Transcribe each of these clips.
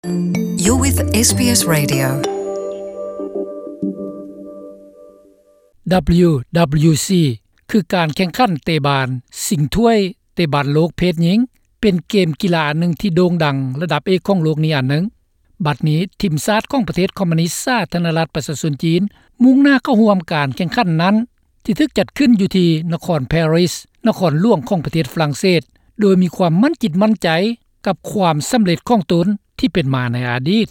You're with ເອສ ບີ ເອສ Radio. ດັບເບິນຢູ ດັບເບິນຢູ ຊີ ຄືການແຂ່ງຂັນເຕະບານຊິງຖ້ວຍເຕະບານໂລກເພດຍິງ ເປັນເກມກິລາອັນໜຶ່ງທີ່ໂດ່ງດັງລະດັບເອກຂອງໂລກນີ້ອັນໜຶ່ງ. ບັດນີ້ທີມຊາດຂອງປະເທດຄອມມູນິດສາທາລະນະລັດປະຊາຊົນຈີນ ມຸ່ງໜ້າເຂົ້າຮ່ວມການແຂ່ງຂັນນັ້ນ ທີ່ຖືກຈັດຂຶ້ນຢູ່ທີ່ນະຄອນປາຣີ ນະຄອນຫຼວງຂອງປະເທດຝຣັ່ງເສດ ໂດຍມີຄວາມໝັ້ນຈິດໝັ້ນໃຈກັບຄວາມສຳເລັດຂອງຕົນທີ່ເປັນມາໃນອະດີດ.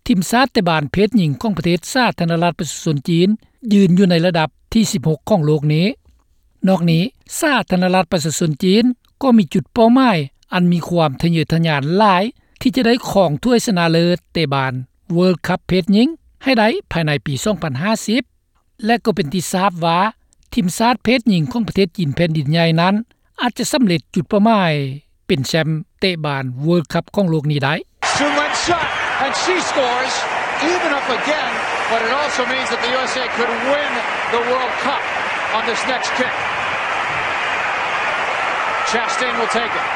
ທີມຊາດເຕະບານເພດຍິງຂອງປະເທດສາທາລະນະລັດປະຊາຊົນຈີນ ຢືນຢູ່ໃນລະດັບທີສິບຫົກຂອງໂລກນີ້. ນອກນີ້ ສາທາລະນະລັດປະຊາຊົນຈີນກໍມີຈຸດເປົ້າໝາຍອັນມີຄວາມທະເຍີທະຍານຫຼາຍ ທີ່ຈະໄດ້ຄອງຖ້ວຍຊະນະເລີດເຕະບານ World Cup ເພດຍິງໃຫ້ໄດ້ພາຍໃນປີສອງພັນຫ້າສິບ ແລະ ກໍເປັນທີ່ຊາບວ່າ ທີມຊາດເພດຍິງຂອງປະເທດຈີນແຜ່ນດິນໃຫຍ່ນັ້ນ ອາດຈະສຳເລັດຈຸດເປົ້າໝາຍເປັນແຊ້ມເຕະບານ World Cup ຂອງໂລກນີ້ໄດ້. Schumann shot, and she scores, even up again, but it also means that the U S A could win the World Cup on this next kick. Chastain will take it.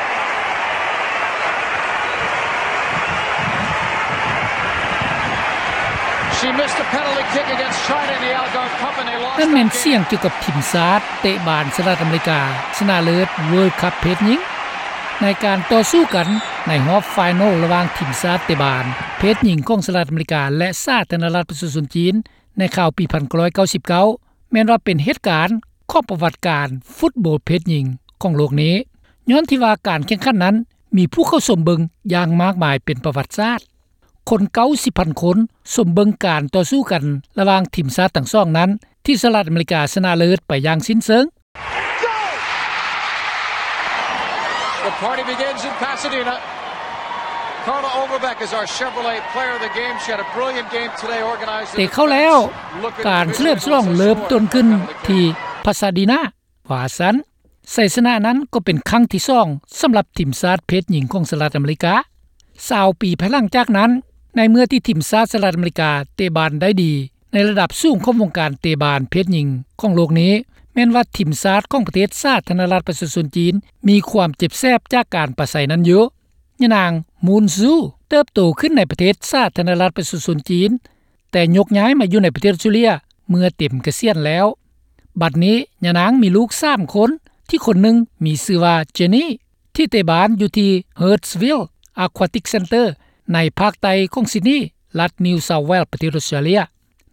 She missed a penalty kick against China in the Algarve Cup, and they lost that game. ນັ້ນແມ່ນສຽງກ່ຽວກັບທີມຊາດເຕະບານສະຫະລັດອາເມລິກາ ຊະນະເລີດ World Cup ເພດຍິງ ໃນການຕໍ່ສູ້ກັນໃນຮອບໄຟນອລລະຫວ່າງທີມຊາດເຕະບານເພດຍິງຂອງສະຫະລັດອາເມລິກາ ແລະ ສາທາລະນະລັດປະຊາຊົນຈີນ ໃນຄາວປີພັນເກົ້າຮ້ອຍເກົ້າສິບເກົ້າ ແມ່ນວ່າເປັນເຫດການຂອງປະຫວັດການຟຸດບອລເພດຍິງຂອງໂລກນີ້ ຍ້ອນທີ່ວ່າການແຂ່ງຂັນນັ້ນມີຜູ້ເຂົ້າຊົມເບິ່ງຢ່າງມາກມາຍເປັນປະຫວັດສາດ. ຄົນເກົ້າສິບພັນຄົນຊົມເບິ່ງການຕໍ່ສູ້ກັນລະຫວ່າງທີມຊາດທັງສອງນັ້ນ ທີ່ສະຫະລັດອາເມລິກາຊະນະເລີດໄປຢ່າງສິ້ນເຊີງ. The party begins in Pasadena. Carla Overbeck is our Chevrolet Player of the Game. She had a brilliant game today, organized in ເຕະເຂົ້າແລ້ວ ການສະເຫຼີມສະຫຼອງເລີ່ມຕົ້ນຂຶ້ນທີ່ Pasadena ວ່າຊັ້ນ. ໄຊຊະນະນັ້ນກໍເປັນຄັ້ງທີສອງສຳລັບທີມຊາດເພດຍິງຂອງສະຫະລັດອາເມລິກາ. ຊາວປີພາຍຫຼັງຈາກນັ້ນ ໃນເມື່ອທີ່ທີມຊາດສະຫະລັດອາເມລິກາເຕະບານໄດ້ດີໃນລະດັບສູງຂອງວົງການເຕະບານເພດຍິງຂອງໂລກນີ້ ແມ່ນວ່າທີມຊາດຂອງປະເທດສາທາລະນະລັດປະຊາຊົນຈີນ ມີຄວາມເຈັບແສບຈາກການປາໄສນັ້ນຢູ່. ຍານາງ ມູນຊູ ເຕີບໂຕຂຶ້ນໃນປະເທດສາທາລະນະລັດປະຊາຊົນຈີນ ແຕ່ຍົກຍ້າຍມາຢູ່ໃນປະເທດອົດສະຕຣາເລຍເມື່ອເຕັມກະສຽນແລ້ວ. ບັດນີ້ຍານາງມີລູກສາມຄົນ ທີ່ຄົນໜຶ່ງມີຊື່ວ່າ Jenny ທີ່ເຕະບານຢູ່ທີ່ Hurstville Aquatic Centre ໃນພາກໃຕ້ຂອງ Sydney ລັດ New South Wales ປະເທດອົດສະຕຣາເລຍ.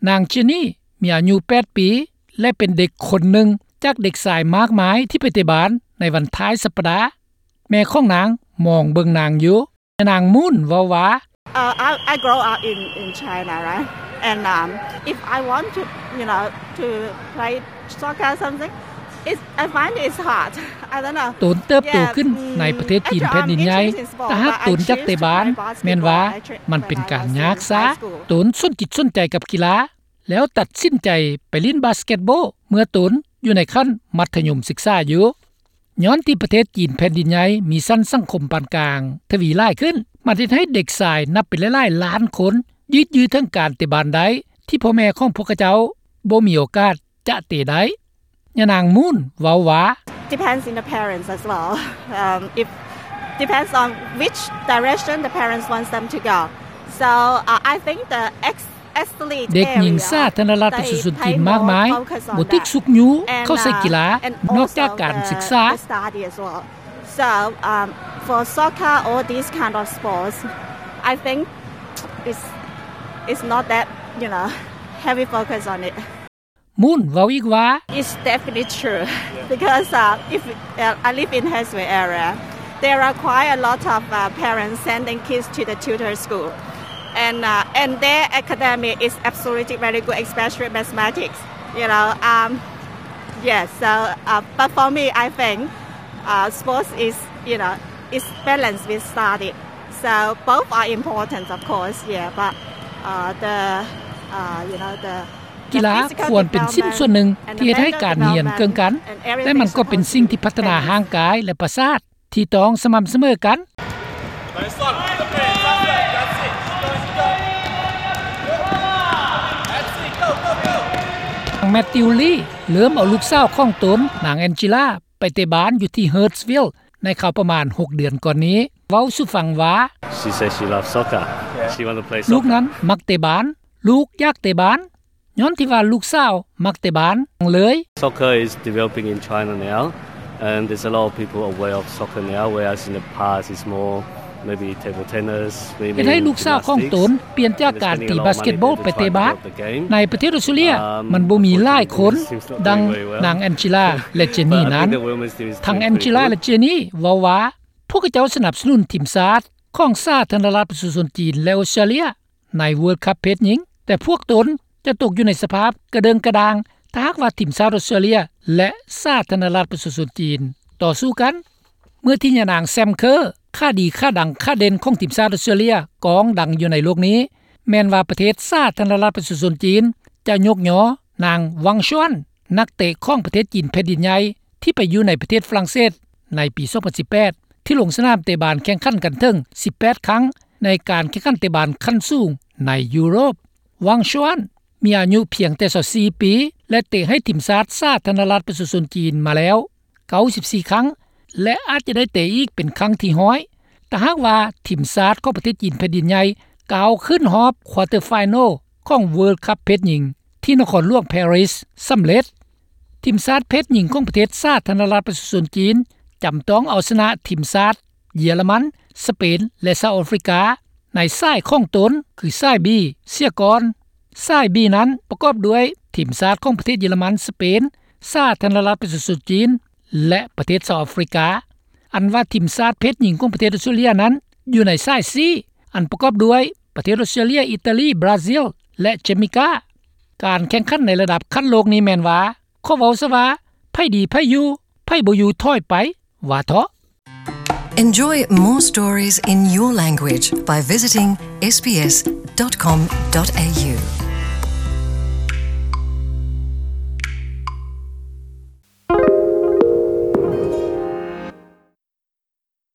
ນາງ Jenny ມີອາຍຸແປດປີ ແລະ ເປັນເດັກຄົນໜຶ່ງຈາກເດັກຊາຍມາກມາຍທີ່ໄປເຕະບານໃນວັນທ້າຍສັບປະດາ. ແມ່ຂອງນາງມອງເບິ່ງນາງຢູ່. ຍານາງ ມູນ ເວົ້າວ່າ Uh, I, I grow up in, in China, right? And, um, if I want to, you know, to play soccer or something, it's, I find it's hard. I don't know. ຕົນເຕີບໂຕຂຶ້ນໃນປະເທດຈີນແຜ່ນດິນໃຫຍ່ ແຕ່ຫາກຕົນຢາກເຕະບານ ແມ່ນວ່າມັນເປັນການຍາກຊາ. ຕົນສົນຈິດສົນໃຈກັບກິລາ ແລ້ວຕັດສິນໃຈໄປຫຼິ້ນບາສເກັດບອລເມື່ອຕົນຢູ່ໃນຂັ້ນມັດທະຍົມສຶກສາຢູ່. ຍ້ອນທີ່ປະເທດຈີນແຜ່ນດິນໃຫຍ່ມີຊັ້ນສັງຄົມປານກາງທະວີຫຼາຍຂຶ້ນ ມັນເຮັດໃຫ້ເດັກຊາຍນັບເປັນຫຼາຍໆລ້ານຄົນ ຍືດເຖິງການເຕະບານໄດ້ ທີ່ພໍ່ແມ່ຂອງພວກເຂົາເຈົ້າບໍ່ມີໂອກາດຈະເຕະໄດ້. ຍານາງ ມູນ ເວົ້າວ່າ Depends on the parents as well. Um, if, depends on which direction the parents wants them to go. So, uh, I think the ex- ເດັກຍິງສາທາລະນະລັດປະຊາຊົນຈີນມາກມາຍ ບໍ່ຖືກຊຸກຍູ້ເຂົ້າໃສ່ກິລາ ນອກຈາກການສຶກສາ. So, um, for soccer or these kind of sports, I think it's, it's not that, you know, heavy focus on it. ມູນ ເວົ້າອີກວ່າ It's definitely true because, uh, if, uh, I live in Hurstville area, there are quite a lot of, uh, parents sending kids to the tutor school. And, uh, and their academic is absolutely very good, especially mathematics, you know. Um, yes, so, uh, but for me, I think, uh, sports is, you know, is balanced with study. So both are important, of course, yeah, but, uh, the, uh, you know, the ກິລາຄວນເປັນຊິ້ນສ່ວນໜຶ່ງທີ່ເຮັດໃຫ້ການຮຽນເກີ່ງກັນ ແລະ ມັນກໍເປັນສິ່ງທີ່ພັດທະນາຮ່າງກາຍ ແລະ ປະສາດທີ່ຕ້ອງສະໝ່ຳສະເໝີກັນ. ນາງ ແມັດຕິວ ລີ ເລີ່ມເອົາລູກສາວຂອງຕົນ ນາງ ແອນຈີລາ ໄປເຕະບານຢູ່ທີ່ Hurstville ໃນຄາວປະມານຫົກເດືອນກ່ອນນີ້. ເວົ້າສູ່ຟັງວ່າ She says she loves soccer. She want to play soccer. ລູກນັ້ນມັກເຕະບານ, ລູກຢາກເຕະບານ. ຍ້ອນທີ່ວ່າລູກສາວມັກເຕະບານເລີຍ. Soccer is developing in China now, and there's a lot of people aware of soccer now, whereas in the past it's more maybe table tennis, swimming, ເຮັດໃຫ້ລູກສາວຂອງຕົນ gymnastics, ປ່ຽນຈາກການຕີບາສເກັດບອລໄປເຕະບາດ. ໃນປະເທດອອສເຕຣເລຍ ມັນບໍ່ມີຫຼາຍຄົນ ດັ່ງນາງແອນເຈລາ ແລະ ເຈນນີນັ້ນ. ທັງແອນເຈລາ ແລະ ເຈນນີ ເວົ້າວ່າ ພວກເຂົາເຈົ້າສະໜັບສະໜູນທີມຊາດຂອງສາທາລະນະລັດປະຊາຊົນຈີນ ແລະ ອອສເຕຣເລຍ ໃນ World Cup ເພດຍິງ, ແຕ່ພວກຕົນຈະຕົກຢູ່ໃນສະພາບກະເດີ່ງກະດ່າງ ຖ້າຫາກວ່າທີມຊາດອອສເຕຣເລຍ ແລະ ສາທາລະນະລັດປະຊາຊົນຈີນ ຕໍ່ສູ້ກັນ. ເມື່ອທີ່ຍານາງ ແຊມ ເຄີ ຂາດີ ຂາດັງ ຂາເດັ່ນຂອງທີມຊາດອອສເຕຣເລຍ ກອງດັງຢູ່ໃນໂລກນີ້ ແມ່ນວ່າປະເທດສາທາລະນະລັດປະຊາຊົນຈີນ ຈະຍົກຍໍນາງ ວັງ ຊວນ ນັກເຕະຂອງປະເທດຈີນແຜ່ນດິນໃຫຍ່ ທີ່ໄປຢູ່ໃນປະເທດຝຣັ່ງເສດໃນປີສອງພັນສິບແປດ ທີ່ລົງສະໜາມເຕະບານແຂ່ງຂັນກັນເຖິງສິບແປດຄັ້ງ ໃນການແຂ່ງຂັນເຕະບານຂັ້ນສູງໃນຢູໂຣບ. ວັງ ຊວນ ມີອາຍຸພຽງແຕ່ຊາວສີ່ປີ ແລະ ເຕະໃຫ້ທີມຊາດສາທາລະນະລັດປະຊາຊົນຈີນມາແລ້ວເກົ້າສິບສີ່ຄັ້ງ ແລະ ອາດຈະໄດ້ເຕະອີກເປັນຄັ້ງທີຮ້ອຍ ຖ້າຫາກວ່າທີມຊາດຂອງປະເທດຈີນແຜ່ນດິນໃຫຍ່ ກ້າວຂຶ້ນຮອບ quarter final ຂອງ World Cup ເພດຍິງ ທີ່ນະຄອນຫຼວງ Paris ສຳເລັດ. ທີມຊາດເພດຍິງຂອງປະເທດສາທາລະນະລັດປະຊາຊົນຈີນ ຈຳຕ້ອງເອົາຊະນະທີມຊາດເຢຍລະມັນ, ສະເປນ ແລະ ສາວອາຟຣິກາ ໃນສາຍຂອງຕົນ ຄືສາຍ B ເສຍກ່ອນ. ສາຍ B ນັ້ນປະກອບດ້ວຍທີມຊາດຂອງປະເທດເຢຍລະມັນ, ສະເປນ, ສາທາລະນະລັດປະຊາຊົນຈີນ ແລະ ປະເທດສາວອາຟຣິກາ. ອັນວ່າທີມຊາດເພດຍິງຂອງປະເທດອອສເຕຣເລຍນັ້ນ ຢູ່ໃນສາຍ C ອັນປະກອບດ້ວຍປະເທດອອສເຕຣເລຍ, ອີຕາລີ, ບຣາຊິລ ແລະ ເຈມາເກຍ. ການແຂ່ງຂັນໃນລະດັບຂັ້ນໂລກນີ້ແມ່ນວ່າ ຂໍເວົ້າຊະວ່າ ໃຜດີໃຜຢູ່, ໃຜບໍ່ຢູ່ຖອຍໄປ ວ່າເທາະ. Enjoy more stories in your language by visiting S B S dot com dot A U.